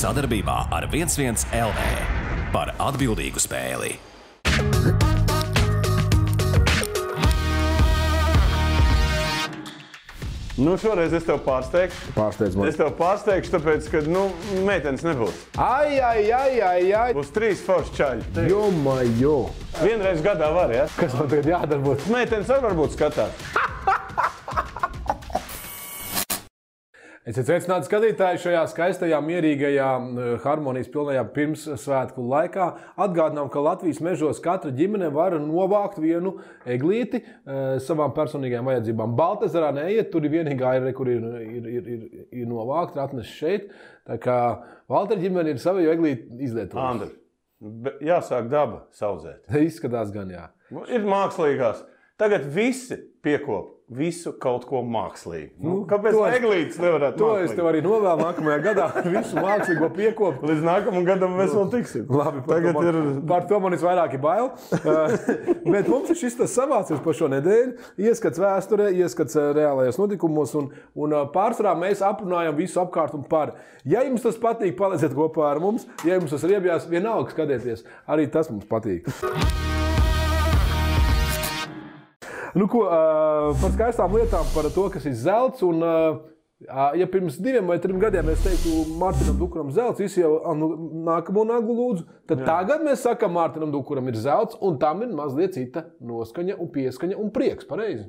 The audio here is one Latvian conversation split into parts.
Sadarbībā ar 11 LV par atbildīgu spēli. Nu, šoreiz es tev pārsteigšu. Pārsteidz man. Es tev pārsteigšu, tāpēc, ka, meitenes nebūs. Ai. Būs 3 forši čaļi. Jo. Vienreiz gadā var, ja? Kas man tagad jādara būs? Meitenes arī varbūt skatās. Esiet sveicināti skatītāji šajā skaistajā, mierīgajā, harmonijas pilnajā pirmssvētku laikā. Atgādinām, ka Latvijas mežos katra ģimene var novākt vienu eglīti savām personīgajām vajadzībām. Baltezerā neiet, tur ir vienīgā aire, kur ir novākt, atnes šeit. Tā kā Valtera ģimene ir savu eglīti izlietojusi. Andri, jāsāk daba saudzēt. Izskatās gan, jā. Ir mākslīgās. Tagad visi piekop visu kaut ko mākslīgu. Kāpēc eglītes nevarētu to mākslīgi? Es tev arī novēlu nākamajā gadā visu mākslīgo piekopu. Līdz nākamajam gadam mēs vēl tiksim. Labi, par to man visvairāk ir bail. Bet mums ir šis tas savācies par šo nedēļu. Ieskats vēsturē, ieskats reālajos notikumos. Un pārsvarā mēs aprunājam visu apkārt un par. Ja jums tas patīk, palieciet kopā ar mums. Ja jums tas riebjās, vienalga skatieties. Arī tas mums patīk. Nu ko, par skaistām lietām, par to, kas ir zelts. Un, ja pirms 2 vai 3 gadiem es teiktu Mārtiņam Dukuram zelts, visi jau nākamo naglu lūdzu, tad tagad mēs sakam Mārtiņam Dukuram ir zelts, un tam ir mazliet cita noskaņa un pieskaņa un prieks, pareizi?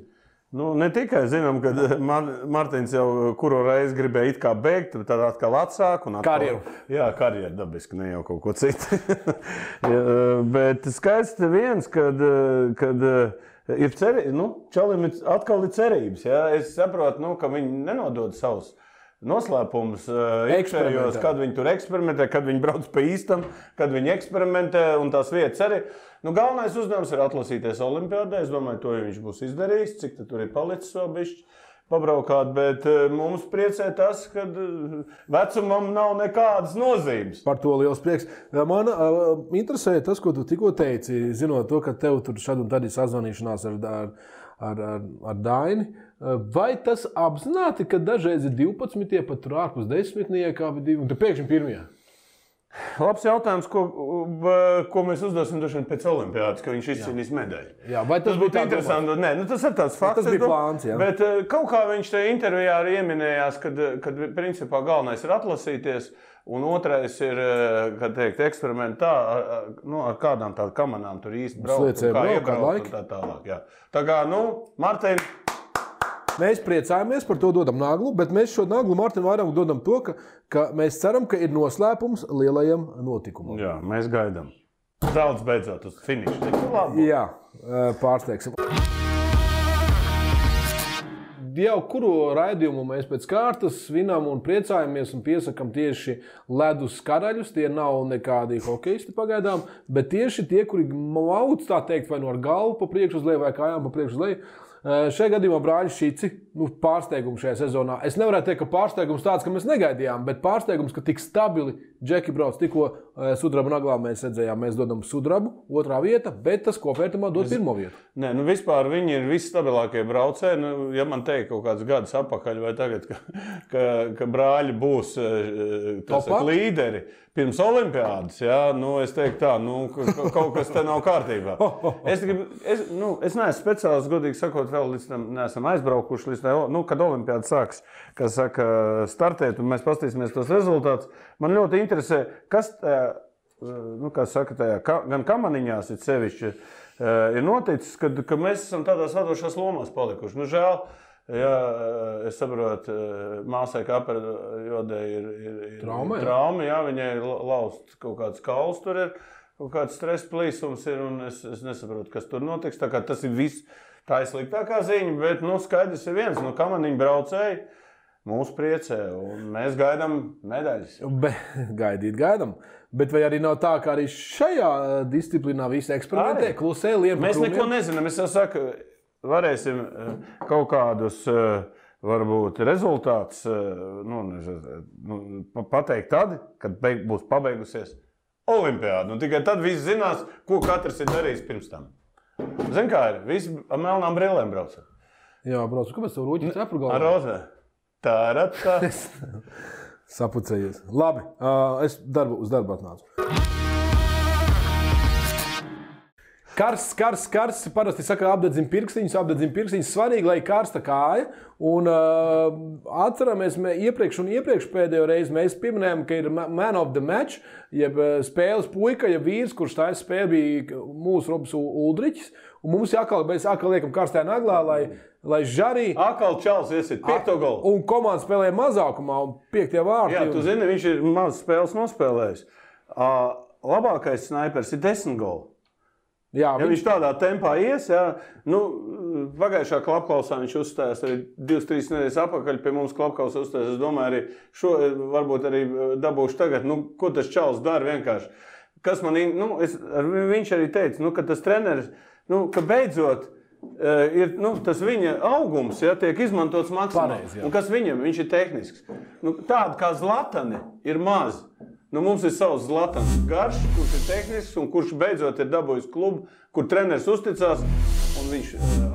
Nu, ne tikai zinām, ka Mārtiņš jau kuru reizi gribēja it kā bēgt, tad atkal atsāk. Karjeru. Jā, karjeru dabiski, ne jau kaut ko citu. Bet skaisti viens, kad ir čalim atkal ir cerības. Ja? Es saprotu, ka viņi nenodod savus noslēpumus iekšējos, kad viņi tur eksperimentē, kad viņi brauc pa īstam, kad viņi eksperimentē un tās vietas arī. Galvenais uzdevums ir atlasīties olimpiādē. Es domāju, to viņš būs izdarījis, cik tur ir palicis vēl bišķi pabraukāt, bet mums priecē tas, ka vecumam nav nekādas nozīmes. Par to liels prieks. Man interesē tas, ko tu tikko teici, zinot to, ka tev tur šad un tad ir sazvanīšanās ar Daini. Vai tas apzināti, ka dažreiz ir 12, pat tur ārpus 10, un tu pēkšņi pirmajā? Labs jautājums, ko mēs uzdosim pēc olimpiādas, ka viņš izcīnīs medaļu. Jā, vai tas būtu interesanti? Nē, tas ir tāds fakts. Tas bija plāns, jā. Bet kaut kā viņš te intervijā arī ieminējās, kad principā galvenais ir atlasīties, un otrais ir, kad teikt, eksperimentā, ar kādām tādu kamanām tur īsti braukt, kā iebraukt un tā tālāk. Jā. Tā kā, Martin... Mēs priecājamies par to, dodam naglu, bet mēs šo naglu Martinam vairāk dodam to, ka mēs ceram, ka ir noslēpums lielajam notikumam. Jā, mēs gaidām. Zelts beidzot uz finišu. Jā, pārsteigsim. Jau kuru raidījumu mēs pēc kārtas svinam un priecājamies un piesakam tieši ledus karaļus. Tie nav nekādi hokeisti pagaidām, bet tieši tie, kuri mauc, tā teikt, vai ar galvu pa priekšu uz leju vai kājām pa priekšu uz leju. Šajā gadījumā brāļi Šici, pārsteigums šajā sezonā. Es nevarētu teikt, ka pārsteigums tāds, ka mēs negaidījām, bet pārsteigums, ka tik stabili Džeki brauc. Tikko sudraba naglā mēs redzējām, mēs dodam sudrabu, 2. vieta, bet tas kopvērtumā dod 1. vietu. Nē, vispār viņi ir visstabilākie braucēji. Ja man teikt kaut kāds gadus apakaļ vai tagad, ka brāļi būs līderi pirms olimpiādas, es teiktu tā, kaut kas te nav kārtībā. Es neesmu speciāls, godīgi sakot, vēl līdz tam neesam aizbraukuši, līdz tam, kad olimpiāda sāks, kas saka, startēt, un mēs pastīsimies tos rezultātus. Man ļoti interesē, kas tajā, kā saka, tajā, gan kamaniņās ir sevišķi, ir noticis, ka mēs esam tādās vadošās lomās palikuši. Žēl, jā, es saprotu, māsai Kaperjodē ir trauma, jā, viņai ir laust kaut kāds kauls, tur ir kaut kāds stresa plīsums ir, un es nesaprotu, kas tur notiks. Tā kā tas ir viss, tā ir sliktākā ziņa, bet, skaidrs ir viens, kamaniņu braucēji mūs priecē, un mēs gaidām medaļas. Gaidām. Bet vai arī nav tā, ka arī šajā disciplīnā visi eksperimentē, klusē, liem pa krūmiem? Mēs neko nezinām, es jau saku, varēsim kaut kādus, varbūt, rezultātus pateikt tad, kad būs pabeigusies olimpiāda. Tikai tad visi zinās, ko katrs ir darījis pirms tam. Zini, kā ir? Visi ar melnām brillēm brauca. Jā, braucu. Kāpēc tev rūķi cepru galvā? Ar rozē. Tā. Sapucējies. Labi, es uz darbu atnācu. Karsts. Parasti saka, apdedzina pirkstiņus. Svarīgi, lai ir karsta kāja. Un atceramies, iepriekš pēdējo reizi mēs pieminējām, ka ir man of the match, jeb spēles puika, jeb vīrs, kurš tā spēle bija mūsu Robs Uldriķis. Un mums jākal liekam karstajā naglā, lai žarī. Akal čals iesit 5. golu. Un komanda spēlē mazākumā un 5. vārti. Jā, tu zini, viņš ir maz spēles nospēlējis. Labākais snaipers ir 10 golu. Jā, viņš tādā tempā ies, pagājušā klapklausā viņš uzstājās arī 2-3 nedēļas atpakaļ pie mums klapklausā uzstājās. Es domāju, arī šo varbūt arī dabūšu tagad. Ko tas čals dara vienkārši? Kas man, viņš arī teica, ka tas treneris, ka beidzot ir tas viņa augums, tiek izmantots maksimāli. Un kas viņam? Viņš ir tehnisks. Tāda kā Zlatani ir maz. Mums ir savs Zlatans Garš, kurš ir tehnisks un kurš beidzot ir dabūjis klubu, kur treneris uzticās un viņš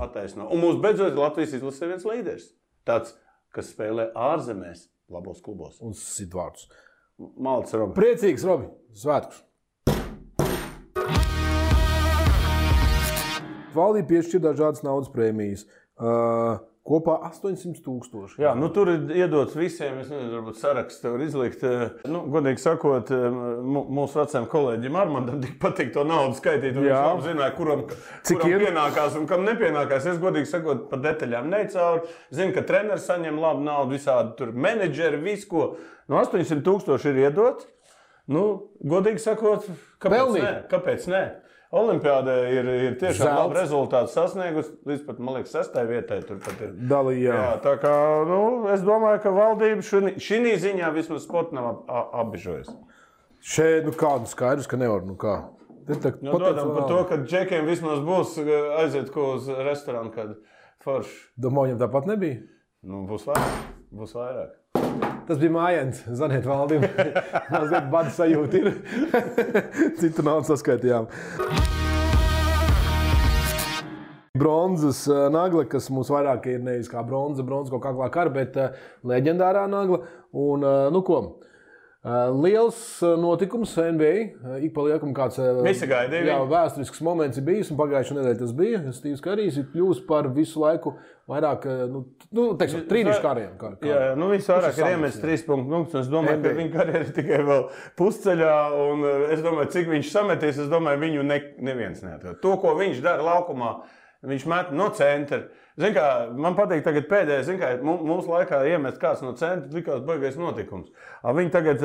attaisno. Un mums beidzot ir Latvijas izlasē viens līderis. Tāds, kas spēlē ārzemēs labos klubos. Un sit vārdus. Malts, Robi. Priecīgs, Robi. Svētkus. Valdība piešķir dažādas naudas prēmijas. Kopā 800,000. Jā, tur ir iedots visiem, es nezinu, varbūt saraksts tev var izlikt. Godīgi sakot, mūsu vecajam kolēģim Armandam tik patīk to naudu skaitīt, un viņš zināja, kuram pienākās un kam nepienākās. Es godīgi sakot, par detaļām necauri. Zinu, ka treneris saņem labu naudu, visādi tur menedžeri, visu ko. 800,000 ir iedot. Godīgi sakot, kāpēc ne? Olimpiādē ir tiešām labi rezultāti sasniegusi, līdz pat, man liekas, 6. vietai tur pat ir. Dalījā. Jā, tā kā, es domāju, ka valdība šī ziņā vismaz sporta nav apbežojusi. Šeit, kādu skaidrs, ka nevar, kā? Dodam par to, ka džekiem vismaz būs aiziet ko uz restorānu, kad forši. Domāju, viņam tāpat nebija? Būs vairāk. Tas bija mājiens, zaniet valdību. Mazliet bada sajūta ir. Citu naudu saskaitījām. Bronzas nagla, kas mums vairāk ir nevis kā bronza kaut kā kara, bet leģendārā nagla. Un, liels notikums NBA. Ik pa liekam kāds vēsturisks moments ir bijis, un pagājušajā nedēļā tas bija. Stīvs Karijs ir kļūst par visu laiku vairāk, trīnišu kariem. Viņš vairāk ir iemetis 3 punktus. Es domāju, ka viņa karjera ir tikai vēl pusceļā, un es domāju, cik viņš sametīs, es domāju, viņu neviens neatrod. To, ko viņš dara laukumā, viņš met no centra. Zin kā, man patīk tagad pēdējais, mums laikā iemest kāds no centra, likās baigais notikums. Viņi tagad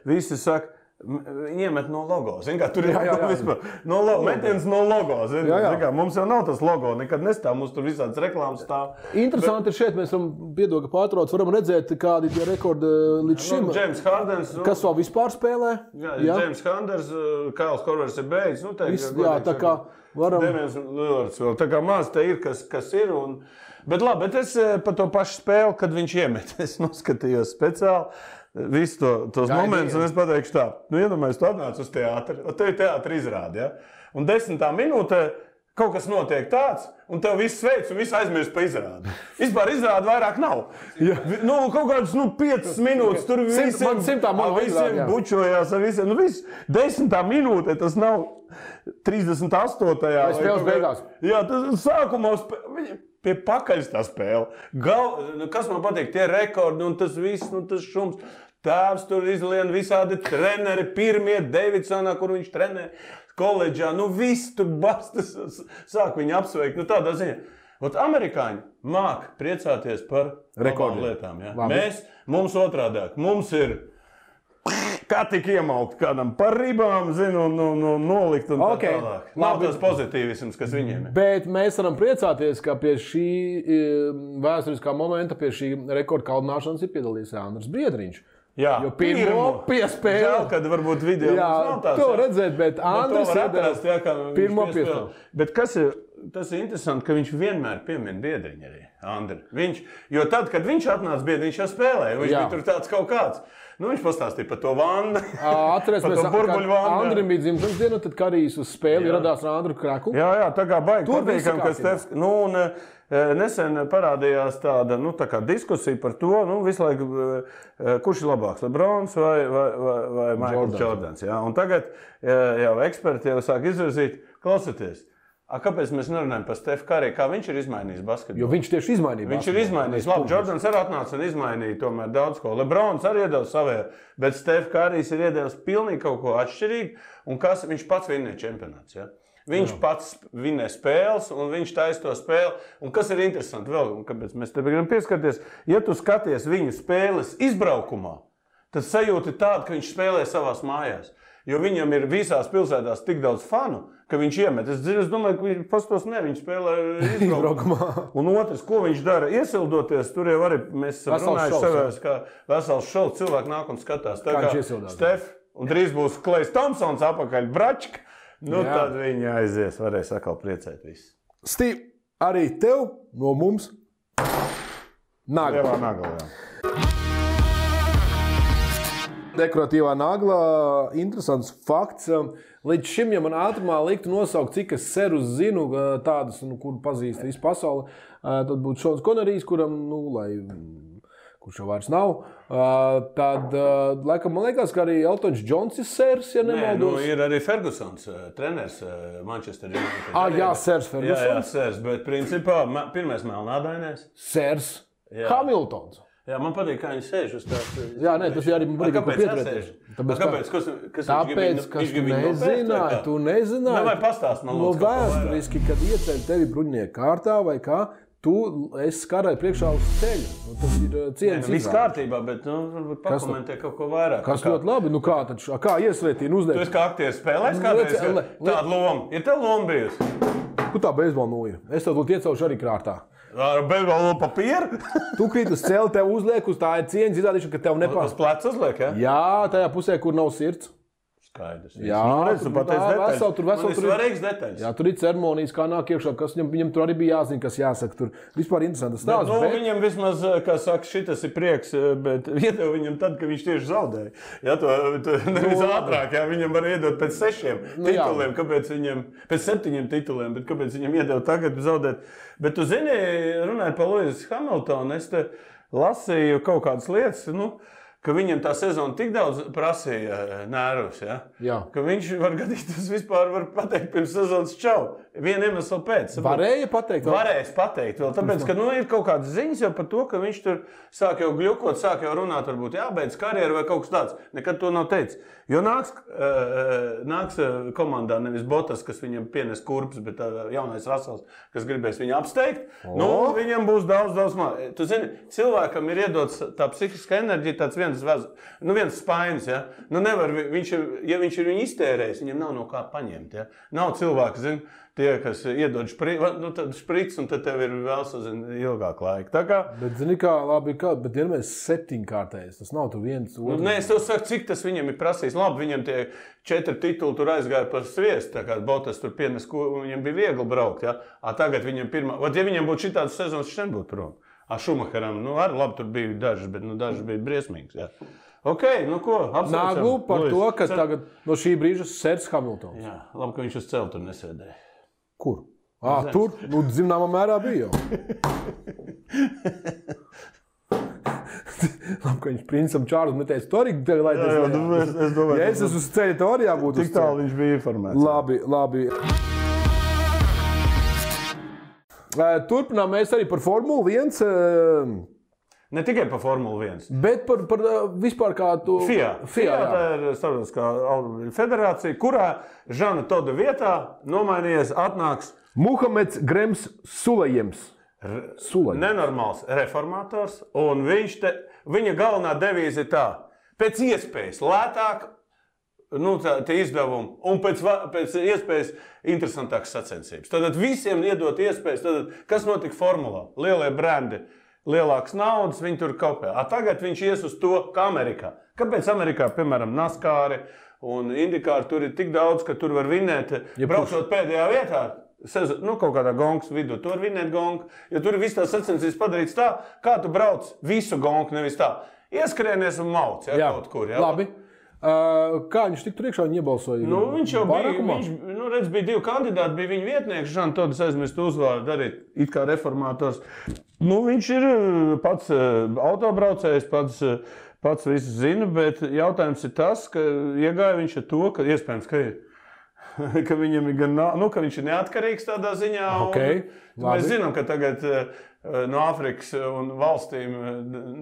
visi saka, iemet no logo. Zin kā, tur ir vispār metiens no logo. Zin kā, mums jau nav tas logo, nekad nestāv, mums tur visādas reklāmas stāv. Interesanti ir šeit, mēs varam, piedoga pārtrauc, varam redzēt, kādi tie rekordi līdz šim. James Hardens. Kas vēl vispār spēlē? James Hardens, Kails Korvers ir beidzis. Tā kā varam. Demians Lillards vēl. Tā kā maz te ir, kas ir. Bet labi, bet es par to pašu spēli, kad viņš iemet, es noskatījos speciāli. Visu tos momentus, un es pateikšu tā, iedomājies, tu atnāc uz teātri, un tev ir teātri izrādi, un 10. minūtē kaut kas notiek tāds, un tev viss sveic, un viss aizmirst pa izrādi. Vispār izrādi vairāk nav. Kaut kādas 5 minūtes, tur visiem bučojās, ar visiem, 10. minūtē tas nav 38. Vai spēles beigās? Jā, tas sākumā pie pakaļas tā spēle. Kas man patīk, tie rekordi un tas viss, tas šums. Tēvs tur izlien visādi treneri, pirmie Davidsonā, kur viņš trenē koledžā. Viss tur bastas, sāk viņu apsveikt. Tādā ziņā. Amerikāņi māk priecāties par labām lietām. Ja? Mums otrādāk. Mums ir kā tik iemaukt kādam par ribām, un nolikt un tā tālāk. Nav tas pozitīvisms, kas viņiem ir. Bet mēs varam priecāties, ka pie šī vēsturiskā momenta, pie šī rekorda kaldināšanas ir piedalījies Andris Biedriņš. Jā, jo pirmo piespēli. Žēl, kad varbūt video nav tāds. To redzēt, bet Andris pirmo piespēli. Bet tas ir interesanti, ka viņš vienmēr piemin Biedriņu arī, Andri. Jo tad, kad viņš atnāca Biedriņš jau spēlēja, viņš bija tur tāds kaut kāds. Viņš pastāstīja par to vannu. Atcerēsimies, ka Andrim bija dzimšanas diena, tad Karijs uz spēli ieradās ar Andru Kraku. Jā, tā kā baigi patīkam, ka Stefs... nesen parādījās tāda tā kā diskusija par to, visu laiku, kurš ir labāks, LeBrons vai Michaels Jordans. Ja? Un tagad jau eksperti jau sāk izvirzīt, klausieties. Kāpēc mēs nerunājam par Stefu Kariju, kā viņš ir izmainījis basketbolu? Jo viņš tieši izmainīja basketbolu. Viņš ir izmainījis. Labi, Jordans arī atnāca un izmainīja tomēr daudz ko. LeBrons arī iedevis savēju, bet Stefu Karijs ir iedevis pilnīgi kaut ko atšķirīgu. Un viņš pats vinnēja čempionāts. Ja? Viņš pats vinnē spēles un viņš taisa to spēli. Un kas ir interesanti vēl, un kāpēc mēs te gribam pieskarties, ja tu skaties viņu spēles izbraukumā, tad sajūta tāda, ka viņš spēlē savās mājās. Jo viņam ir visās pilsētās tik daudz fanu, ka viņš iemet. Es domāju, ka viņš pastos viņš spēlē izbraukumā. Un otrs, ko viņš dara, iesildoties, tur jau arī mēs runājuši savās, kā vesels šovs, cilvēki nāk un skatās. Tā kā Stef, un drīz būs Klejs Tomsons apakaļ bračka, tad viņi aizies, varēs atkal priecēt visu. Stīv, arī tev no mums nagla. Jā. Dekoratīvā nagla, interesants fakts. Līdz šim, ja man ātrumā liktu nosaukt, cik es serus zinu, tādus, kuru pazīst visu pasauli, tad būtu Šons Konerijs, kuram, kurš jau vairs nav. Tad, laikam, man liekas, ka arī Eltons Džons ir sers, ja nemaldos. Ir arī Fergusons, treneris Manchester United. Jā, sers Fergusons. Jā, sers, bet principā pirmais melnādainais. Sers Hamiltons. Jā, man patīk, kā viņi sēž uz tās. Jā, tas arī man patīk, kā pieturēties. Kāpēc? Tāpēc, ka tu nezināji. Vai pastāst man lūdzu, vēsturiski, kad ieceļ tevi bruņinieku kārtā vai kā, tu esi karai priekšā uz ceļa. Tas ir cieņas viss kārtībā, bet pakomentē kaut ko vairāk. Kas ļoti labi? Kā iesvētīni uzdēļ? Tu esi kā aktieris spēlējis kādreiz tādu lomu? Ir tev loma bijusi? Kur tā beisbola nūja? Es tev iecaušu arī krātā. Ar bezbalnu papīru? Tu krīt uz celi, tev uzliek uz tā ir cieņas izrādīšana, ka tev nepārāk. Uz pleca uzliek, ja? Jā, tajā pusē, kur nav sirds. Skaidrs. Jā, tu pateici detaļas. Tur ir svarīgs detaļas. Jā, tur ir ceremonijas, kā nāk iekšā, kas viņam tur arī bija jāzina, kas jāsaka. Tur vispār interesants stāsts. Viņam vismaz, kā saka, šitas ir prieks, bet iedeva viņam tad, ka viņš tieši zaudēja. Jā, tu nevis ātrāk, jā, viņam var iedot pēc 6 tituliem, kāpēc viņam, pēc 7 tituliem, bet kāpēc viņam iedeva tagad zaudēt. Bet tu zini, runājot par Lewis Hamiltonu, es te lasīju kaut kādas lietas, ka viņam tā sezona tik daudz prasīja nervus, ja? Ka viņš var gadīties vispār var pateikt pirms sezonas čau. Vienu iemeslu pēc. Varēja pateikt? Varēs pateikt vēl, tāpēc, ka ir kaut kādas ziņas jau par to, ka viņš tur sāk jau gļukot, sāk jau runāt, varbūt jābeidz karjeru vai kaut kas tāds. Nekad to nav teicis. Jo nāks komandā nevis Botas, kas viņam pienes kurpes, bet jaunais Rasels, kas gribēs viņu apsteigt, viņam būs daudz māk. Tu zini, cilvēkam ir iedots tā psihiska enerģija, tāds viens spainis, ja? Nevar, ja viņš ir viņu iztērējis, viņam nav no kā paņemt, ja? Nav cilvēki, zini, tie, kas iedod špric, un tad tev ir vēl ilgāk laika. Tā kā... Bet zini kā, labi, bet vienmēr 7-kārtējs, tas nav tu viens otrs. Nē, es tev saku, cik tas viņam ir prasījis. Labi, viņam tie 4 tituli tur aizgāja par sviestu, tā kā Botas tur pienes, viņam bija viegli braukt, ja? Tagad viņam ja viņam būtu šitādas sezonas, viņš nebūtu prom. Šumacheram, arī labi, tur bija dažas, bet dažas bija briesmīgas, ja? Ok, ko, apsveicam. Naglu par to, ka tagad no šī brīža sers Hamiltons. Jā, labi, ka viņš uz celi tur nesēdēja. Kur? Tur, zināmā mērā bija jau. Labi, ka viņš princam Čārlis neteica, tu arī lai es domāju. Ja es esmu uz ceļa, to arī jābūt uz ceļa. Tik tālu viņš bija informēts. Labi. Turpinām mēs arī par Formulu 1. Ne tikai par Formulu 1. Bet par vispār kā tu... FIA. Tā ir starptautiskā automobiļu federācija, kurā Žana Toda vietā nomainījies atnāks Muhameds Grems Sulejams. Nenormāls reformators, un viņa galvenā devīze ir tā, pēc iespējas lētāk, tie izdevumi, un pēc iespējas interesantākas sacensības. Tad visiem iedot iespējas, kas notika formulā? Lielie brendi. Lielākas naudas, viņi tur kopē. Tagad viņš ies uz to, kā Amerikā. Kāpēc Amerikā, piemēram, NASCAR un IndyCar tur ir tik daudz, ka tur var vinēt, braucot pēdējā vietā, kaut kādā gongas vidū, tu var vinēt gongu, jo tur ir viss tās sacensības padarīts tā, kā tu brauc visu gongu, nevis tā. Ieskrienies un mauc, kaut kur. Labi. Kā viņš tik tur iekšā viņa iebalsoja? Viņš jau bija 2 kandidāti, bija viņa vietnieks, Žantodas aizmirst uzvārdu, arī it kā reformātors. Viņš ir pats autobraucējs, pats visu zina, bet jautājums ir tas, ka iegāja viņš ar to, ka iespējams, ka viņam ir gan, ka viņš ir neatkarīgs tādā ziņā. Okay, mēs zinām, ka tagad no Āfrikas un valstīm,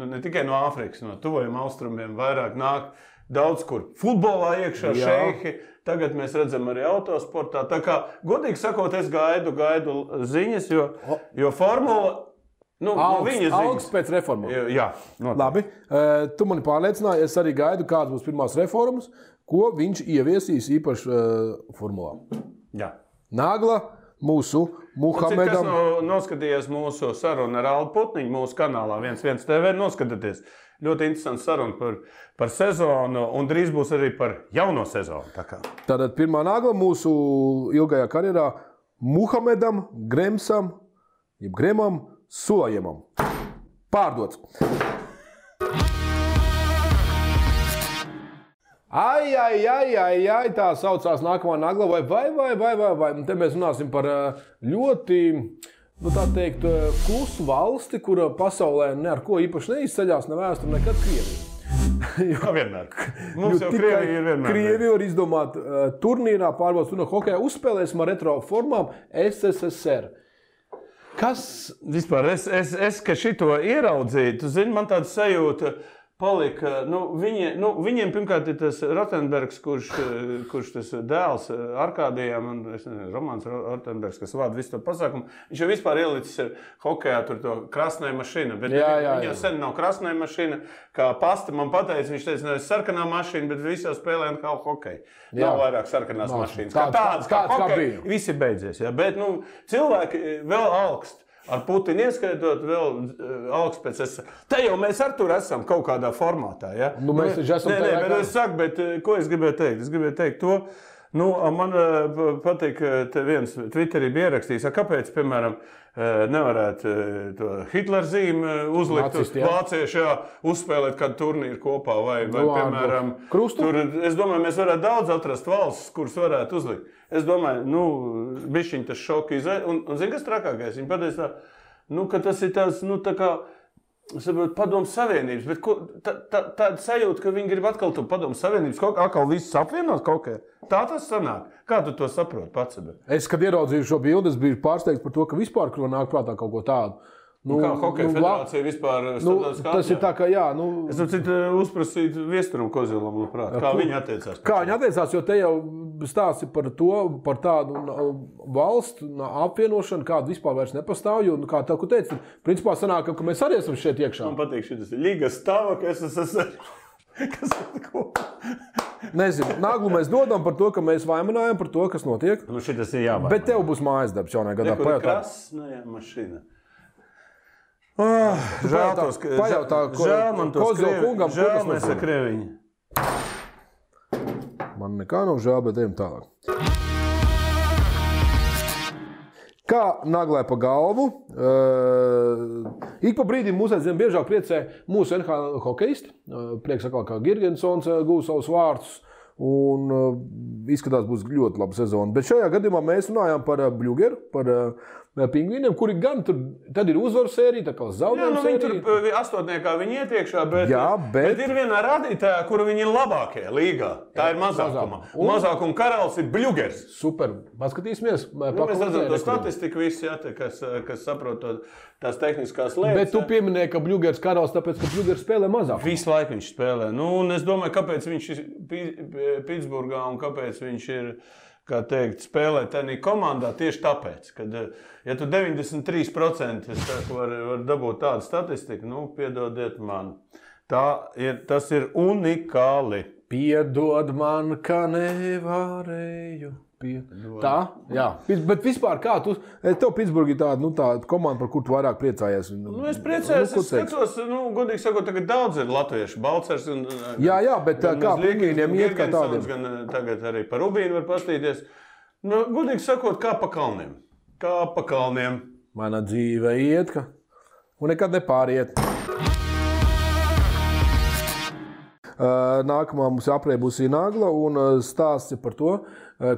ne tikai no Āfrikas, no tuvajiem austrumiem vairāk nāk daudz kur futbolā iekšā šeihi. Tagad mēs redzam arī autosportā. Tā kā, godīgi sakot, es gaidu ziņas, jo formula... Augsts pēc reformām. Jā, noteikti. Labi. Tu mani pārliecināji, es arī gaidu, kādas būs pirmās reformas, ko viņš ieviesīs īpaši formulā. Jā. Nagla mūsu Muhamedam. Kas noskatījies mūsu sarunu ar Aldu Putniņu mūsu kanālā 11 TV, noskatieties. Ļoti interesants saruna par sezonu un drīz būs arī par jauno sezonu. Tātad pirmā nagla mūsu ilgajā karjerā Muhamedam Gremsam, jeb Gremam Sulajemam. Pārdots. Ai, tā saucās nākamā nagla, vai. Te mēs runāsim par ļoti, tā teikt, klusu valsti, kura pasaulē ne ar ko īpaši neizceļās, ne vēsture, nekad Krievija. Vienmēr. Mums jau Krievija ir vienmēr. Krievija var izdomāt turnīrā, pārbaudas turnīrā hokejā, uzspēlēsim ar retro formām SSSR. Kas vispār, es ka šito ieraudzīju, tu zini, man tāda sajūta palika, viņiem pirmkārt ir tas Rotenbergs, kurš tas dēls Arkādijam, un es nezinu, Romāns Rotenbergs, kas vada visu to pasākumu, viņš jau vispār ielicis hokejā tur to krasnai mašīna, bet viņa sen nav krasnai mašīna, kā pasta man pateica, viņš teica, nevis sarkanā mašīna, bet visā spēlē kā hokeja. Nav vairāk sarkanās mašīnas. Kā tādas, kā hokeja, visi beidzies, ja? Bet cilvēki vēl augst. Ar Putinu ieskaitot vēl augsts pēc Te jau mēs ar tur esam kaut kādā formātā, ja? Mēs taču esam tajā bet es saku, bet ko es gribēju teikt? Es gribēju teikt to, man patīk, te viens Twitterī bija ierakstījis, kāpēc, piemēram, nevarētu to Hitler zīmi uzlikt uz vācieši, uzspēlēt kādu turnīru kopā, vai piemēram, tur, es domāju, mēs varētu daudz atrast valsts, kuras varētu uzlikt. Es domāju, bišķiņ tas šoki un zini, kas trakākais? Viņi pateica ka tas ir tāds, tā kā, Padomu Savienības, bet tāda sajūta, ka viņi grib atkal to Padomu Savienības, atkal visus apvienot kaut kā. Tā tas sanāk. Kā tu to saproti pats? Es, kad ieraudzīju šo bildi, es biju pārsteigts par to, ka vispār nāk prātā kaut ko tādu. Kā hokeja federācija vispār tas ir tā, ka Es uzprasītu Viesturam Kozilam, kā viņi attiecās. Kā viņi attiecās, jo te jau stāsti par tādu valstu apvienošanu, kāda vispār vairs nepastāv, jo, kā tev, ko teici, principā sanāk, ka mēs arī esam šeit iekšā. Man patīk šitas Liga Stava, ka es esmu... Kas ir ko? Nezinu, naglu mēs dodam par to, ka mēs vaimanājam par to, kas notiek. Šitas ir jāvainā. Bet tev būs mājas darbs jaunajā gadā. Nekur krasnajā mašīna. Žēl man tos kungam, žēl mēs ar Krieviņu. Man nekā nav žēl, bet ejam tālāk. Kā naglē pa galvu, ik pa brīdim mūs aizvien biežāk priecē mūsu NHL hokejisti. Prieks atkal, kā Girgensons gūs savus vārdus un izskatās būs ļoti laba sezona. Bet šajā gadījumā mēs runājām par Bļugeru, par Pingvīniem, kuri gan tur, tad ir uzvaru sērija, tā kā zaudējumu sērija. Viņi tur astotniekā viņi iet iekšā, bet ir vienā rādītājā, kura viņi ir labākie līgā. Tā ir mazākuma. Mazākuma karalis ir Bļugers. Super. Paskatīsimies. Mēs redzam to statistiku visi, kas saprot tās tehniskās lietas. Bet tu pieminēji, ka Bļugers karalis, tāpēc, ka Bļugers spēlē mazāk. Visu laiku viņš spēlē. Un es domāju, kāpēc viņš ir Pitsburgā un kāpēc viņš ir... Kā teikt, spēlēt tādā komandā tieši tāpēc, ka, ja tu 93% var dabūt tādu statistiku, piedodiet man. Tas ir unikāli. Piedod man, ka nevarēju. Tā, jā. Bet vispār kā tu, tev Pitsburgi ir tāda komanda, par kur tu vairāk priecājies? Es priecājos, es skatos, godīgi sakot, tagad daudz ir latviešu, Balcers un... Jā, bet kā Pingvīniem iet kā tādiem? Gan tagad arī par Rubīnu var pastīties. Godīgi sakot, kā pa kalniem. Kā pa kalniem. Mana dzīve iet, un nekad nepāriet. Nākamā mums aprēbusī Nagla un stāsts ir par to,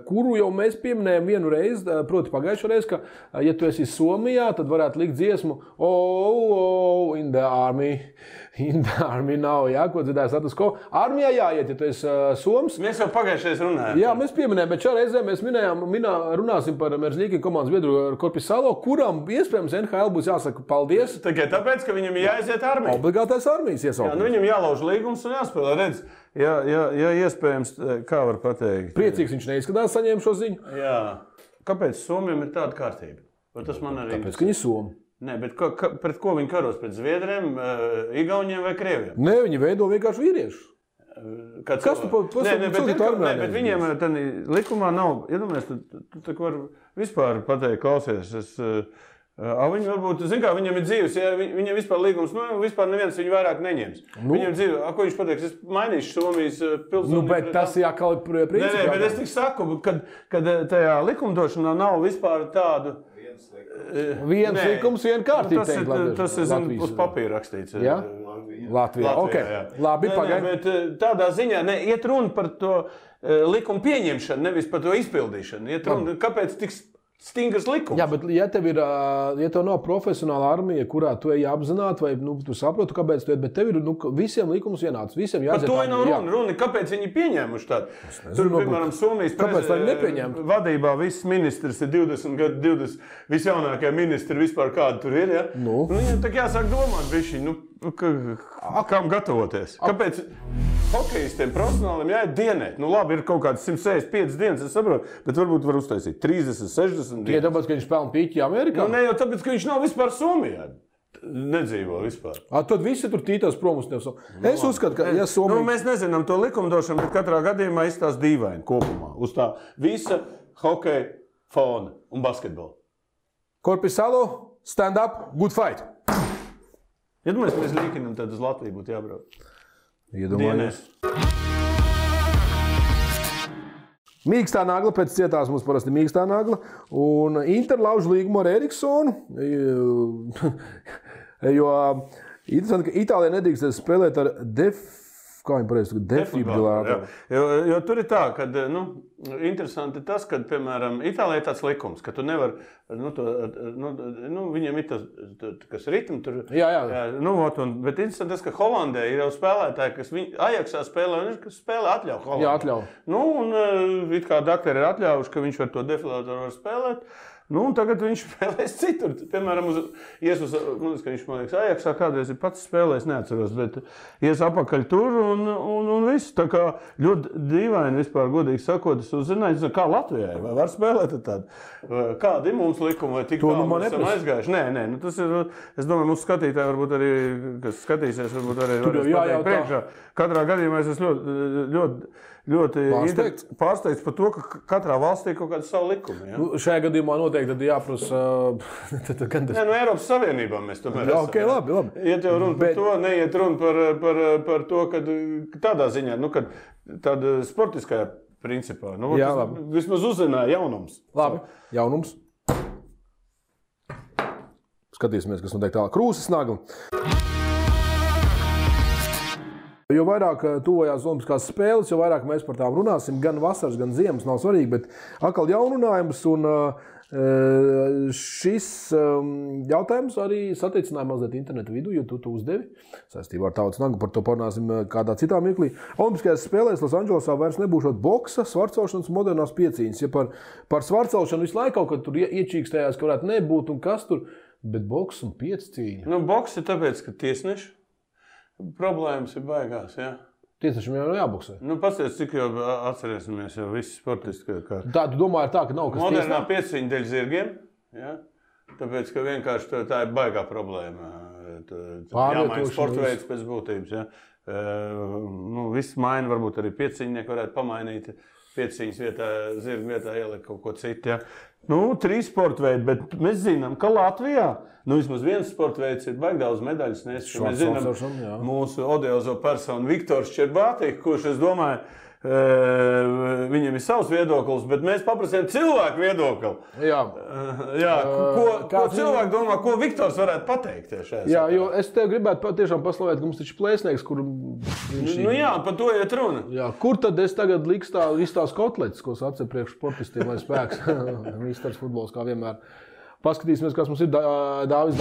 kuru jau mēs pieminējām vienu reizi, proti pagājušo reizi, ka, ja tu esi Somijā, tad varētu likt dziesmu Oh, in the army. In the army nav, jā, ko dzirdēja status quo. Armijā jāiet, ja tu esi Soms. Mēs jau pagājušajā runājām. Jā, mēs pieminējām, bet šā reizē mēs runāsim par Merzlīki komandas biedru Korpisalo, kuram iespējams NHL būs jāsaka paldies. Tikai tāpēc, ka viņam jāiziet armijā. Obligātais armijas iesaukums. Jā, viņam jālauž līgums un jāspēlē. Redz, ja iespējams, kā var pateikt. Priecīgs viņš neizskatās saņēma šo ziņu. Jā. Kāpēc Somiem ir tāda kārtība? Tas man arī Tāpēc, ka viņi Somi. Nē, bet pret ko viņi karos? Pret Zviedriem, Igauniem vai Krieviem? Nē, viņi veido vienkārši vīriešus. Kas tu bet viņiem likumā nav, iedomājies, tu tā var vispār pateikt, klausies, viņi varbūt, zin kā, viņam ir dzīves, ja viņam vispār līgums, vispār neviens viņu vairāk neņems. Viņam dzīve, ko viņš pateiks, es mainīšu Somijas pilsonību. Bet tas jākal principā. Nē, bet es tik saku, kad tajā likumdošanā nav vispār tādu. Viens likums, viena kārtība. Tas ir uz papīra rakstīts. Jā? Latvijā. Okay. Jā. Labi, pagaid. Bet tādā ziņā iet runa par to likumu pieņemšanu, nevis par to izpildīšanu. Iet runa, kāpēc tik stingrs likums. Jā, bet ja tev nav profesionāla armija, kurā tu ej apzināti, vai tu saproti, kāpēc tu ej, bet tev ir visiem likums vienāds. Visiem jāiet. Par to nav runa. Kāpēc viņi pieņēmuši tādu? Tur, piemēram, Somijas vadībā viss ministrs ir 20 gadu, 20 visjaunākie ministri vispār kādi tur ir. Ja? Viņam tā jāsāk domāt bišķi, kam gatavoties. Kāpēc hokejistiem profesionāliem jāiet dienēt? Labi, ir kaut kāds 165 dienas, es saprotu, bet varbūt var uztaisīt 30, 60 dienas. Ja tāpēc, ka viņš spēlē pīķi Amerikā? Ne jau tāpēc, ka viņš nav vispār Somijā. Nedzīvo vispār. Tad visi tur tītās prom uz tevi. Es uzskatu, ka ja Somija... Mēs nezinām to likumdošanu, bet katrā gadījumā izstās dīvaini kopumā. Uz tā visa hokeja fona un basketbola. Korpisalo, stand up, good fight. Iedomājies, mēs līkinam, tad uz Latviju būtu jābrauc. Iedomājies. Mīkstā nagla, pēc cietās mums parasti mīkstā nagla. Un Inter lauž līgumu ar Eriksonu. Jo interesanti, ka Itālijā nedrīkst spēlēt ar defibrillātoru. Jo tur ir tā, ka interesanti tas, ka, piemēram, Itālijā ir tāds likums, ka tu nevar, viņiem ir tas, kas ritmi tur. Jā. Bet interesanti tas, ka Holandē ir jau spēlētāji, kas Ajaxā spēlē, un kas spēlē atļauj Holandē. Jā, atļauj. Un it kā dakteri ir atļaujuši, ka viņš var to defibrillātoru var spēlēt. Un tagad viņš spēlēs citur. Piemēram, ka viņš, man liekas, Ajaxā kādreiz ir pats spēlējis, neatceros, bet ies apakaļ tur un viss. Tā kā ļoti dīvaini vispār, godīgi sakot, es uzzināju, kā Latvijai, vai var spēlēt tādu? Kādi ir mums likumi, vai tik tālu mēs esam aizgājuši? Nē, tas ir, es domāju, mūsu skatītāji varbūt arī, kas skatīsies, varbūt arī varēs pateikt priekšā. Katrā gadījumā es esmu ļoti pārsteigts par to, ka katrā valstī ir kaut kāda savu likumu. Ja? Šajā gadījumā noteikti tad jāprasa... Eiropas Savienībā mēs tomēr esam. Okay, labi. Iet jau runa par to, neiet runa par to, ka tādā ziņā, kad tāda sportiskajā principā. Vismaz uzzināja jaunums. Labi, jaunums. Skatīsimies, kas notiek tālāk. Krūzes nagla. Jo vairāk tuvojās Olimpiskās spēles, jo vairāk mēs par tām runāsim. Gan vasaras, gan ziemas nav svarīgi, bet atkal jaununājums. Un šis jautājums arī satricināja mazliet internetu vidu, jo tu uzdevi saistībā ar tautas naglu. Par to parunāsim kādā citā mirklī. Olimpiskajās spēlēs Losandželosā vairs nebūšot boksa, svarcelšanas modernās piecīņas. Ja par svarcelšanu visu laiku kaut kad tur iečīkstējās, ka varētu nebūt un kas tur, bet boks un piecīņa. Boks ir tāpēc, ka tiesneši. Problēmas ir baigās, jā. Tiesnešiem jau jāboksē. Pasties, cik jau atcerēsimies jau visi sportisti. Tā, tu domā ir tā, ka nav kas tiesnē? Modernā pieciņa dēļ zirgiem, jā. Tāpēc, ka vienkārši tā ir baigā problēma. Jāmaina sporta veids pēc būtības, jā. Viss maina, varbūt arī pieciņnieki varētu pamainīt. Pieciņas vietā, zirga vietā ielikt kaut ko citu, jā. 3 sporta veidi, bet mēs zinām, ka Latvijā vismaz viens sporta veids ir baigi daudz medaļas nes. Mēs zinām mūsu odiozo personu Viktors Čerbātī, kurš, es domāju, viņiem ir savs viedoklis, bet mēs paprasījām cilvēku viedokli. Jā. Ko cilvēki domā, ko Viktors varētu pateikt šajā? Jā, jo es tev gribētu tiešām paslavēt, ka mums taču plēsnieks, kur viņš ir. Nu jā, par to iet runa. Jā, kur tad es tagad liks tās kotletes, ko sacē priekš sportistiem, lai spēks? Misters futbols, kā vienmēr. Paskatīsimies, kas mums ir Dāvis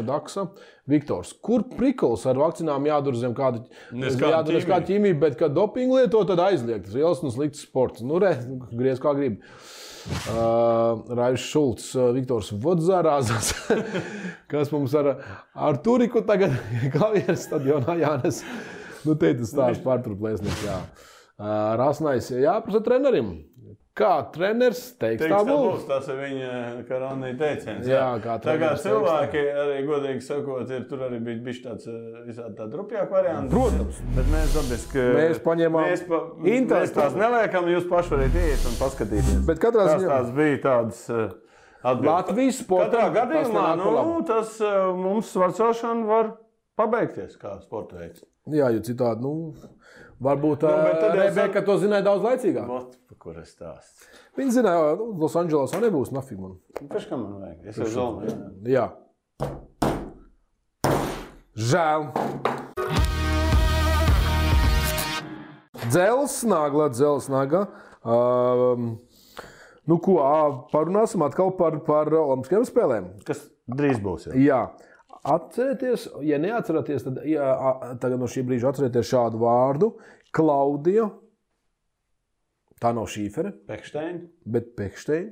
Daksa, Viktors. Kur prikols ar vakcinām jādur zem kāda ķīmija, bet kad dopingu lieto, tad aizliegt. Tas liels un slikts sports. Nu, griez kā grib. Raivs Šulcs, Viktors Vodzārāzas, kas mums ar Turiku tagad klavieres stadionā jānes. Nu, te tas stāsts pārturplēsnieks, jā. Rasnais, jāprasa trenerim. Kā treneris teiks, tā būs. Tas ir viņa karonī teiciens. Jā, kā treneris cilvēki, arī godīgi sakot, tur arī bija bišķi tāds visādi tādi rupjāk varianti. Protams. Bet mēs dabiski... Mēs paņēmām Mēs tās neliekam, jūs paši varat iet un paskatīties. Bet katrā ziņā... Tās bija tādas atbildes. Latvijas sportam... Katrā gadījumā, tas mums svarcošana var pabeigties kā sporta veids. Jā, jo citādi, varbūt Rebeka to zināja daudz laicīgāk. Kur es stāstu? Viņi zināja, Los Andželosā nebūs nafig man. Pēc kā man vajag? Es jau zolmu. Jā. Žēl. Dzelsnagla. Parunāsim atkal par olimpiskajām spēlēm. Kas drīz būs, Jā. Atcerieties, ja neatceraties, tad tagad no šī brīža atcerieties šādu vārdu. Klaudija. Tā nav Šīfere, bet Pekšteina,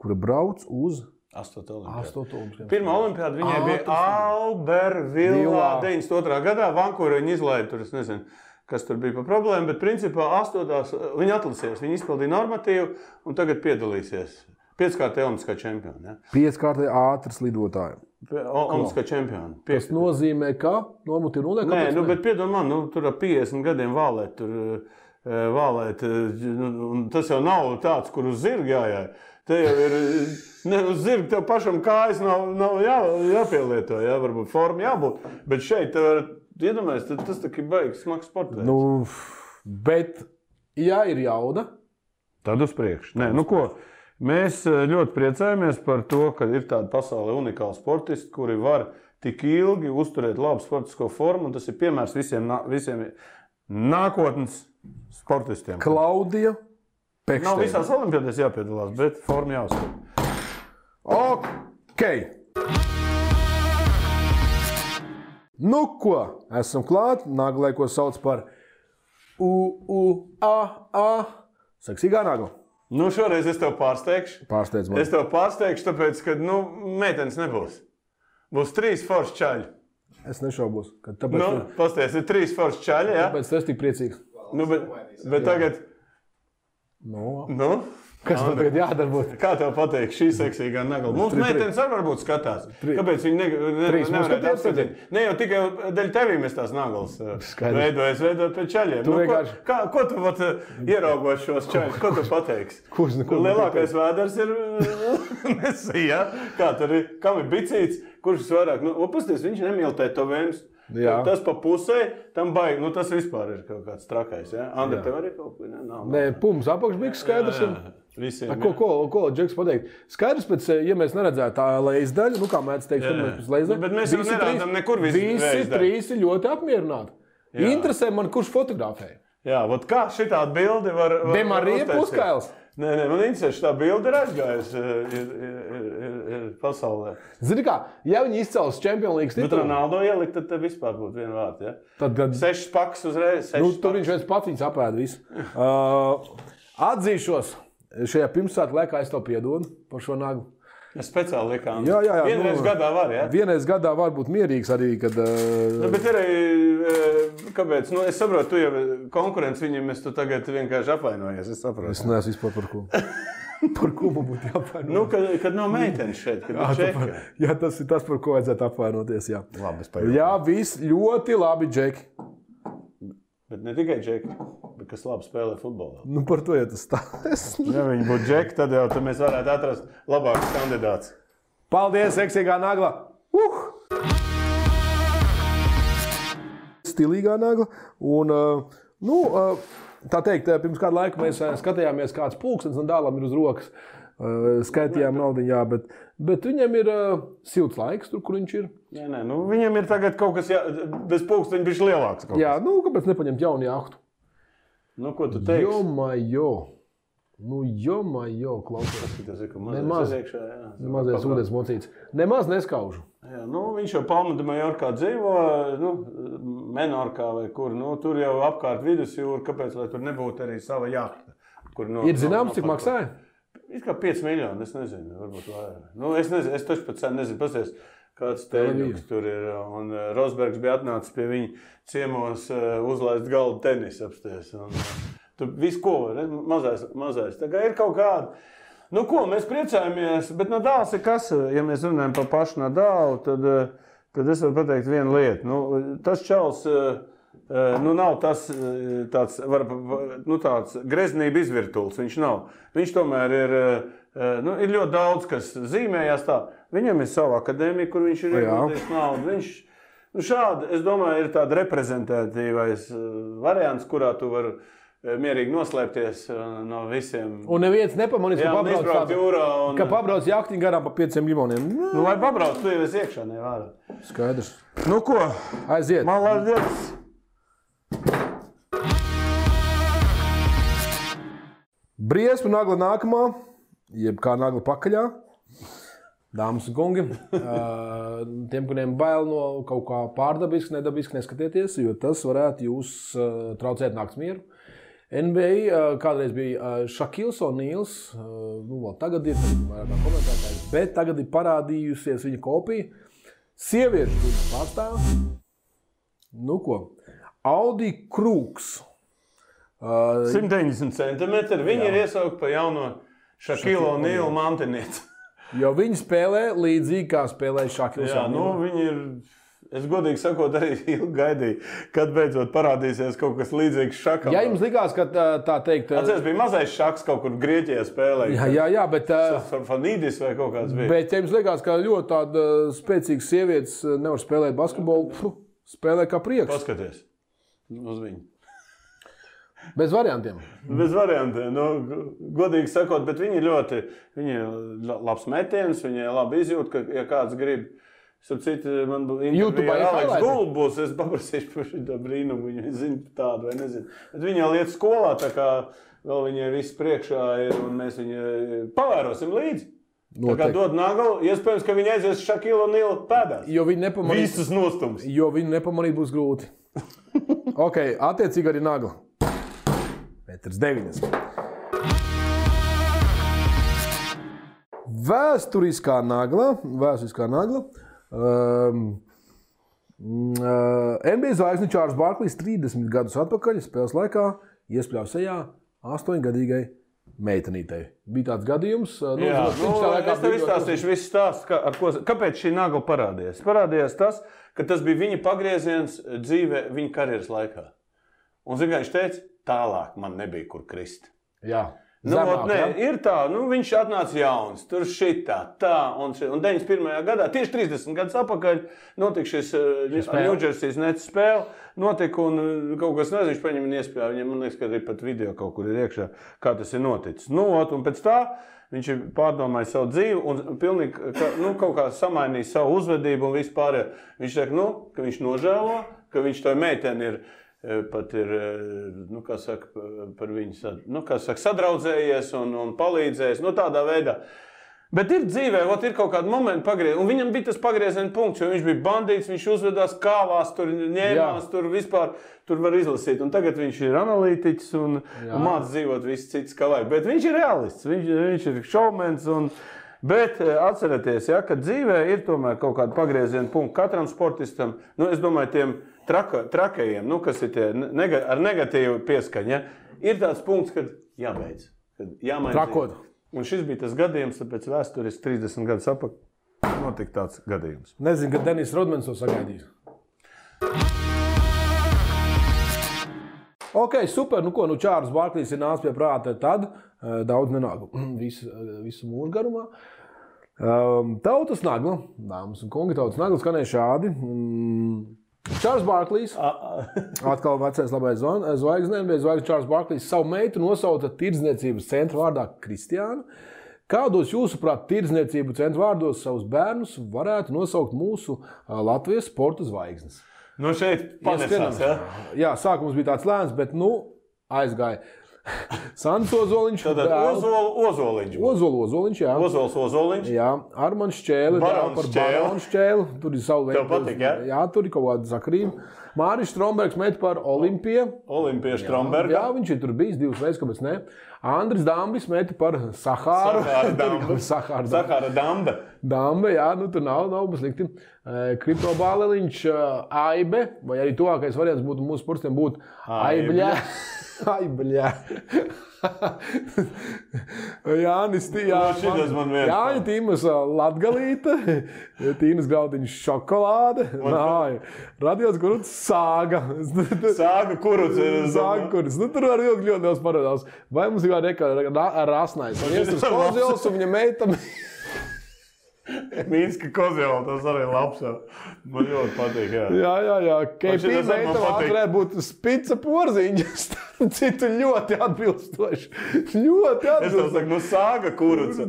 kura brauc uz 8. olimpiādu. Pirmā olimpiāda viņai bija Albervillā 92. gadā. Vankūrā viņa izlaida tur, es nezinu, kas tur bija par problēmu, bet principā 8. viņa atlasījās, viņa izpildīja normatīvu un tagad piedalīsies. 5-kārtē olimpiskā čempiona. Ja? 5-kārtē ātras lidotāji. Olimpiskā čempiona. Tas nozīmē, ka nomuti rulē? Nē, bet piedod man, tur ar 50 gadiem vālēt, tas jau nav tāds, kur uz zirga jājāja. Te jau ir, uz zirga tev pašam kājas nav jāpielieto, jā, varbūt forma jābūt, bet šeit tev var, iedomājies, tas tā ir baigs smags sportveids. Bet, ja ir jauda, tad uz priekšu. Nē, ko, mēs ļoti priecājamies par to, ka ir tāda pasaulē unikāla sportisti, kuri var tik ilgi uzturēt labu sportisko formu, un tas ir piemērs visiem nākotnes sportistiem. Klaudija Pekšteina. Nav visās olimpiādēs jāpiedalās, bet forma jāuztur. Ok. Nu ko, esam klāt. Naglai, ko sauc par U-U-A-A. Seksīgā nagla. Šoreiz es tev pārsteigšu. Pārsteidz man. Es tev pārsteigšu, tāpēc, ka, meitenes nebūs. Būs 3 forši čaļi. Es nešaubos. Pasties, ir 3 forši čaļi, jā? Tāpēc es tik priecīgs. Bet tagad... Kas man tagad jādarbūt? Kā tev pateikt šī seksīgā nagla? Mums meitenes varbūt skatās. Kāpēc viņi nevarētu apskatīt? Ne jau tikai dēļ tevī mēs tās naglas veidojot pēc čaļiem. Ko tu ieraugot šos čaļus? Ko tu pateiksi? Lielākais vēders ir Mesija. Kā tur ir? Kam ir bicīts? Kurš vairāk? Pasties, viņš nemīl tetovējumus. Tas pa pusē, tam baigi, tas vispār ir kaut kāds trakais, ja? Andri, tev arī kaut ko? Nē, pums, apakšbiks skaidrs ir. Ko Džeks pateikt? Skaidrs pēc, ja mēs neredzētu tā leizdaļu, kā mēdz teikt, pēc leizdaļu. Bet mēs jau nerādām nekur visi 3 ir ļoti apmierināti. Interesē man, kurš fotografēja. Jā, kā šitādi bildi var Demarija Puskails. Nē, man interesē, šitā bilde ir aizgājusi ir pasaulē. Zini kā, ja viņi izcels Champions League titulu... Bet Ronaldo ielikt, tad vispār būtu viena vārta, ja? Tad 6 pakas uzreiz, 6 tur viņš viens pats viņus apēda visu. Atzīšos, šajā pirmsvētku laikā es tev piedodu par šo naglu. Es speciāli likām. Jā. Vienreiz gadā var, ja? Vienreiz gadā var būt mierīgs arī, kad... Bet arī, kāpēc? Es saprotu, tu jau konkurence viņam, tu tagad vienkārši apvainojies, es saprotu. Es neesmu vispār par ko. Par ko man būtu jāapvainoties? Kad nav meitenes šeit, kad ir Džeki. Jā, tas ir tas, par ko vajadzētu apvainoties, jā. Labi, es pajautāju. Jā, viss ļoti labi, Džeki. Bet ne tikai Džeki, bet kas labi spēlē futbolā. Par to jau tas stāsts. Ja viņi būtu Džeki, tad mēs varētu atrast labākus kandidātus. Paldies, seksīgā nagla! Stilīgā nagla. Un Nu, tā teikt, pirms kādu laiku mēs skatījāmies, kāds pulkstenis un dālam ir uz rokas. Skaitījām naudu, jā, bet viņam ir silts laiks, tur, kur viņš ir. Nē, nu, viņam ir tagad kaut kas, bez pulksteņa bišķi lielāks. Jā, nu, kāpēc nepaņemt jaunu jahtu? Nu, ko tu teiksi? Jo, klausies. Tas ir, ka mazais iekšā, jā. Mazais ūdens mocīts. Nemaz neskaužu. Jā, nu, viņš jau Palma de Mallorcā dzīvo, nu, Menorkā vai kur, nu, tur jau apkārt vidusjūra, kāpēc, lai tur nebūtu arī sava jahta. Ir zināms, cik maksāja? It kā 5 miljoni, es nezinu, varbūt vairāk. Nu, es nezinu, es taču pat sen nezinu, pasties, kāds teļuks tur ir, un Rosbergs bija atnācis pie viņa ciemos uzlaist galdu tenisa apsties, un tur visu ko var, mazais. Tā kā ir kaut kāda. Nu ko, mēs priecājamies, bet Nadals ir kas, ja mēs runājam par pašu Nadalu, tad es varu pateikt vienu lietu. Nu, tas čals, nu nav tas tāds greznība izvirtuls, viņš nav. Viņš tomēr ir, nu, ir ļoti daudz, kas zīmējās tā. Viņam ir sava akadēmija, kur viņš ir ieguldījis naudu. Viņš, nu šādi, es domāju, ir tāda reprezentatīvais variants, kurā tu vari mierīgi noslēpties no visiem. Un neviens nepamanīs, ka pabrauc jahtiņu garām pa 5 miljoniem. Nu, lai pabrauc, tu jau esi iekšā, nevārā. Skaidrs. Nu ko? Aiziet. Malādietis. Briesma nagla nākamā, jeb kā nagla pakaļā. Dāmas un kungi, tiem, kuriem bail no kaut kā pārdabiski, nedabiski, neskatieties, jo tas varētu jūs traucēt nakts mieru. NBA kādreiz bija Šakils O'Neals, nu vēl tagad ir vairāk kā komentētājs, bet tagad ir parādījusies viņa kopija. Sieviešu pārstāv. Nu ko, Audi Krūks. 190 centimetri, viņi ir iesaukt pa jauno Šakilu O'Neal mantinieci. Jo viņi spēlē līdzīgi, kā spēlēja Šakils O'Neal. Jā, nu viņi ir... Es godīgi sakot, arī ilgi gaidīju, kad beidzot parādīsies kaut kas līdzīgs Šakam. Ja jums likās, ka tā teikt... Atceries, bija mazais Šaks kaut kur Grieķijā spēlēja. Jā, bet... Fanīdis vai kaut kāds bija. Bet ja jums likās, ka ļoti tāda spēcīgas sievietes nevar spēlēt basketbolu, spēlē kā prieks. Paskaties uz viņu. Bez variantiem. Bez variantiem. Nu, godīgi sakot, bet viņi ļoti... Viņi ir labs metiens, viņi labi izjūt, ka ja kāds grib... Starp citu, man intervija ar Aleksu Gulbu būs, es paprasīšu par šo brīnumu, viņi zina tādu vai nezinu. Bet viņi jau iet skolā, tā kā vēl viņai viss priekšā ir, un mēs viņu pavērosim līdzi. Tā kā dod naglu, iespējams, ka viņi aizies Šakilu O'Neal pēdās. Jo viņi nepamanīt. Visas nostums. Jo viņi nepamanīt būs grūti. Ok, attiecīgi arī nagla. 1,90 m. Vēsturiskā nagla. NBA zvaigzne Čārls Barklijs 30 gadus atpakaļ spēles laikā iespļāva sejā 8-gadīgai meitenītei. Bija tāds gadījums. Es tev izstāstīšu visu stāstu, kāpēc šī nagla parādījās. Parādījās tas, ka tas bija viņa pagrieziens dzīvē viņa karjeras laikā. Un, zin, kā viņš teica, tālāk man nebija kur krist. Jā. Ir tā, viņš atnāca jauns, tur šitā, tā, un 91. gadā, tieši 30 gadus atpakaļ, notika šis Ņūdžersijas Nets spēle, notika un kaut kas nezinu, viņš paņem un iespēja, viņam, man liekas, ka arī pat video kaut kur ir iekšā, kā tas ir noticis. Un pēc tā viņš ir pārdomājis savu dzīvi un pilnīgi, kaut kā samainījis savu uzvedību un vispār. Viņš saka, ka viņš nožēlo, ka viņš to meiteni ir pat ir, kā saka, par viņu, sadraudzējies un palīdzējis, tādā veidā. Bet ir dzīvē, ir kaut kādi momenti pagriezieni, un viņam bija tas pagrieziena punkts, jo viņš bija bandīts, viņš uzvedās kāvās, tur ņēmās, tur vispār, tur var izlasīt, un tagad viņš ir analītiķis un māc dzīvot viss cits kā vajag. Bet viņš ir realists, viņš ir šovmens, bet atcerieties, ka dzīvē ir tomēr kaut kāda pagrieziena punkta katram sportistam, es domāju, tiem trakajiem, kas ir tie ar negatīvu pieskaņu, ir tāds punkts, kad jābeidz, kad jāmaina. Trakot. Un šis bija tas gadījums, tāpēc vēsturiski 30 gadus atpakaļ notika tāds gadījums. Nezinu, kad Denis Rodmans to sagaidīs. Ok, super, Čārls Barklijs ir nācis pie prāta tad, daudz nenāk visu mūžu garumā. Tautas nagla, dāmas un kungi, tautas nagla skanēja šādi. Čārls Barklīs. Atkal vecais labais zvaigznes. Čārls Barklīs savu meitu nosauca tirdzniecības centra vārdā Kristiāna. Kādos jūsuprāt tirdzniecību centra vārdos savus bērnus varētu nosaukt mūsu Latvijas sporta zvaigznes? Nu šeit panesās, ja? Jā, sākums bija tāds lēns, bet aizgāja. Sandis Ozoliņš. Tātad Ozoliņš. Ozoliņš, jā. Ozoliņš. Jā, Armands Šķēle. Barons Šķēle. Tur ir savu veidu. Tev patīk, jā? Jā, tur ir kaut kāda sakrība. Māris Strombergs met par Olimpiju. Olimpija Stromberga. Jā, viņš ir tur bijis 2 reizes, kāpēc ne. Andris Dambis met par Sahāru. Sahāra Damba. Damba, jā, tur nav slikti. Kripto Bāleliņš, Aibe, vai arī tuvākais variants būtu mūsu sportistiem būtu Aibļā. Aibļā. Jānis Tīmas Latgalīte, Tīnas Graudiņš šokolāde, Radions Kuruts Sāga. Sāga Kuruts. Sāga Kuruts. Tur var ļoti daudz parādās. Vai mums ir Rasnais? Viesturs Kozils un viņa meita. Mīnska Kozjola, tas arī labs. Man ļoti patīk, jā. Jā. KP meita varētu būt Spica Porziņa. Citu ļoti atbilstoši. Es tev saku, Sāga Kuruca.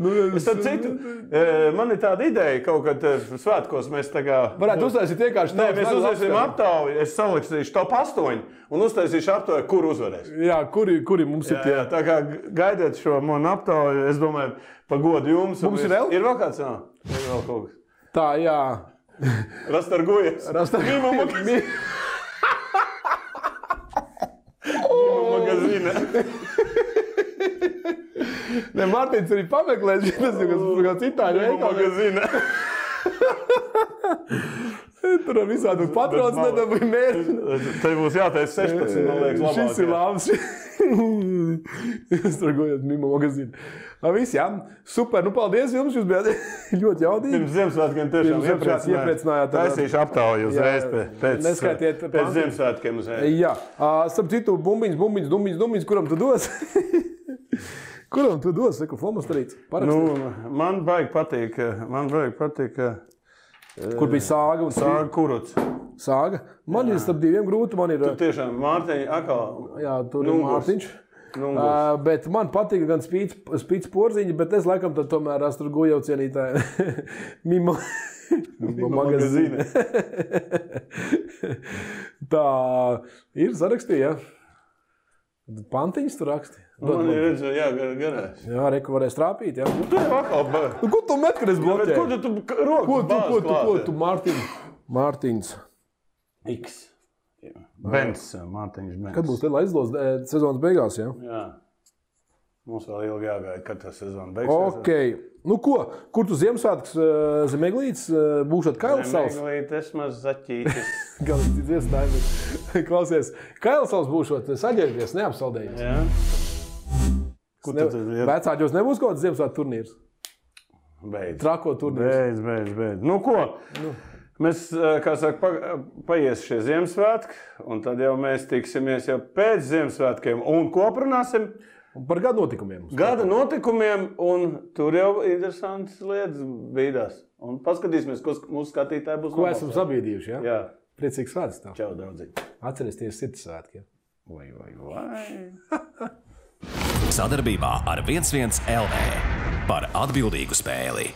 Man ir tāda ideja, kaut kad svētkos mēs tagad... Varētu uztaisīt vienkārši... Nē, mēs uztaisīsim aptauju, es saliksīšu top 8 un uztaisīšu aptauju, kur uzvarēs. Jā, kuri mums ir tie. Jā, tā kā gaidiet šo manu aptauju, es domāju, pagodu jums. Mums ir vēl? Ir vēl kāds? Jā, ir vēl kaut kas. Tā, jā. Rastargujas. Mīma magazīne. Ne, Mārtiņš arī pameklēs, tas ir kāds itāļu Mīma magazīne. Tur ar visādu patrons nedabūja mērķi. Te būs jāteic 16, man liekas, labāk. Šis ir labs. Rastargujas Mīma magazīne. Viss, jā. Super, paldies jums, jūs bijāt ļoti jaudīgi. Pirms Ziemassvētkiem tiešām iepriecinājāt. Taisīšu aptauju uzreiz pēc Ziemassvētkiem uzreiz. Jā. Starp citu, bumbiņas, kuram tu dos? Kuram tu dos? Saku, Flomastarīts. Man baigi patīk. Kur bija Sāga? Sāga Kuruts. Sāga? Man ir starp diviem grūti. Tur tiešām Mārtiņa atkal. Jā, tur ir Mārtiņš. Bet man patīk gan Spīts Porziņa, bet es laikam tad tomēr Rastargujev cienītāju Mīma magazīne. Tā ir sarakstīja. Pantiņas tu raksti. Man ir redzēju, jā, garās. Jā, reku varēs trāpīt, jā. Tu jau atkal... Ko tu met, kad es bloķēju? Ko tu roku bāzi klāt? Ko tu Mārtiņš? X. Bens, Mārtiņš Bens. Kad būs liela aizlos sezonas beigās, jā? Jā. Mums vēl ilgi jāgaida, kad tā sezona beigsies. Okei. Ko? Kur tu Ziemassvētkus Zemeglītes būšot Kailsals? Zemeglītes maz zaķītis. Galīgi dziesdājumi. Klausies, Kailsals būšot saģērbies, neapsaldējies. Jā. Kur tu tad ir? Vecāģos nebūs kaut kāds Ziemassvētku turnīrs? Beidz. Trako turnīrs. Beidz. Ko? Mēs, kā saka, paies šie Ziemassvētki, un tad jau mēs tiksimies jau pēc Ziemassvētkiem. Un ko aprunāsim? Par gada notikumiem. Gada notikumiem, un tur jau interesantas lietas bīdās. Un paskatīsimies, ko mūsu skatītāji būs. Ko esam sabīdījuši, jā? Jā. Priecīgs svēts tev. Čau, draudzīgi. Atceries sirds svētki. Vai. Sadarbībā ar 11 LV par atbildīgu spēli.